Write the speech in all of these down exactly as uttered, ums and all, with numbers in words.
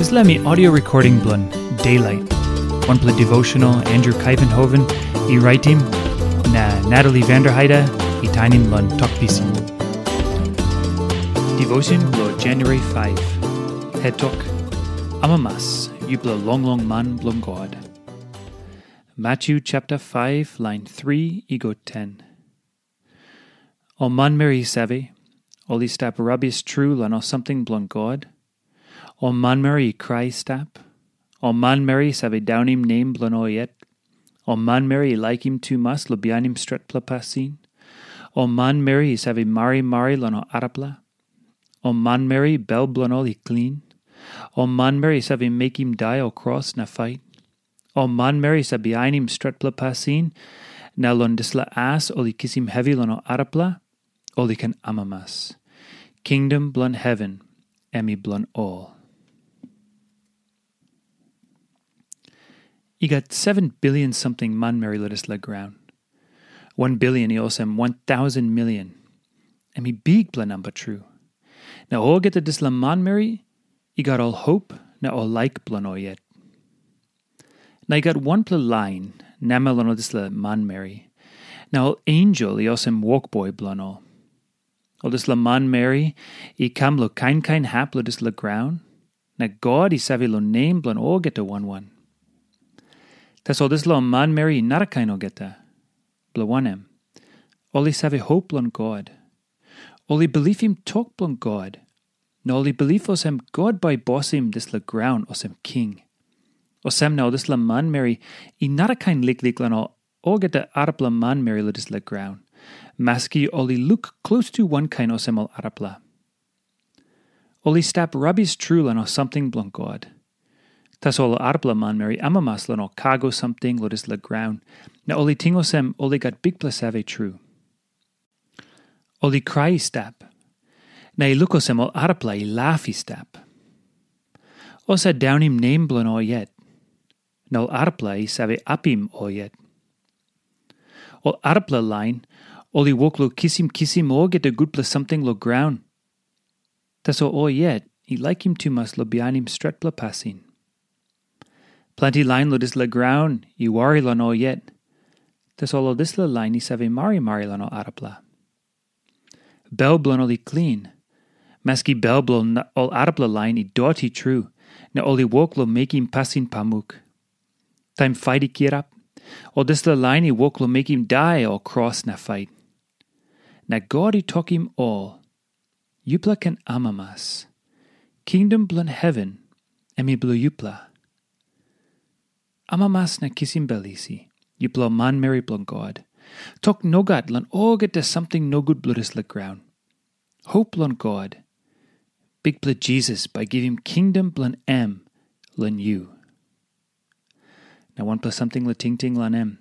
Dispela mi audio recording bilong Daylight, wanpela devotional Andrew Kaivenhoven i raitim, na Natalie Vanderheide i tainim long Tok Pisin. Devotion bilong January five. Het tok, amamas, yupela longlong man bilong God. Matthew chapter five, line three i go ten. Ol manmeri i save, ol i stap rabis tru long ol samting bilong God. Ol manmeri i krai i stap. Ol manmeri i save daunim nem bilong ol yet. Ol manmeri i laikim tumas long bihainim stretpela pasin. Ol manmeri i save marimari long ol arapela. Ol manmeri bel bilong ol i klin. Ol manmeri i save mekim dai o kros na fait. Ol manmeri i save bihainim stretpela pasin, na long dispela as ol i kisim hevi long ol arapela, ol i ken amamas. Kingdom bilong heven em i bilong ol. I gat seven billion samting manmeri long dispela graun. One billion i olsem one thousand million. Em i bikpela namba tru. Na olgeta dispela manmeri i gat ol hop na ol laik bilong ol yet. Na i gat wanpela lain namel long ol dispela manmeri, na ol ensel i olsem wokboi bilong ol. Ol dispela manmeri i kam long kain kain hap long dispela graun, na God i save long nem bilong olgeta wan wan. Tasol dispela manmeri i narakain olgeta, bilong wanem, ol i save hop long God. Ol i bilipim tok bilong God, na ol i bilip olsem God bai i bosim dispela graun olsem king. Olsem na ol dispela manmeri i narakain liklik long ol olgeta arapela manmeri long dispela graun, maski ol i luk klostu wankain olsem ol arapela. Ol i stap rabis tru long ol samting bilong God. Tasol ol arapela manmeri amamas long ol kago samting long dispela graun, na ol i ting olsem ol i gat bikpela save tru. Ol i krai i stap, na i luk olsem ol arapela i laf i stap. Ol save daunim nem bilong ol yet, na ol arapela i save apim ol yet. Ol arapela lain, ol i wok long kisim kisim olgeta gutpela samting long graun. Tasol ol yet i laikim tumas long bihainim stretpela pasin. Planti lain long dispela graun i wari long ol yet. Tasol ol dispela lain i save marimari long ol arapela. Bel bilong ol i klin, maski bel bilong ol arapela lain i doti tru, na ol i wok long mekim pasin pamuk. Taim fait i kirap, ol dispela lain i wok long mekim dai o kros na fait. Na God i tokim ol, "Yupela ken amamas. Kingdom bilong heven em i bilong yupela. Amamas na kisim bel isi, yupela manmeri bilong God. Tok nogat long olgeta samting nogut bilong dispela graun. Hop long God. Bikpela Jisas bai givim kingdom bilong em long yu." Na wanpela samting long tingting long em.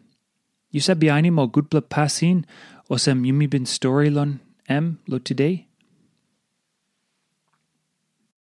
Yu save bihainim ol gutpela pasin olsem yumi bin stori long em long today?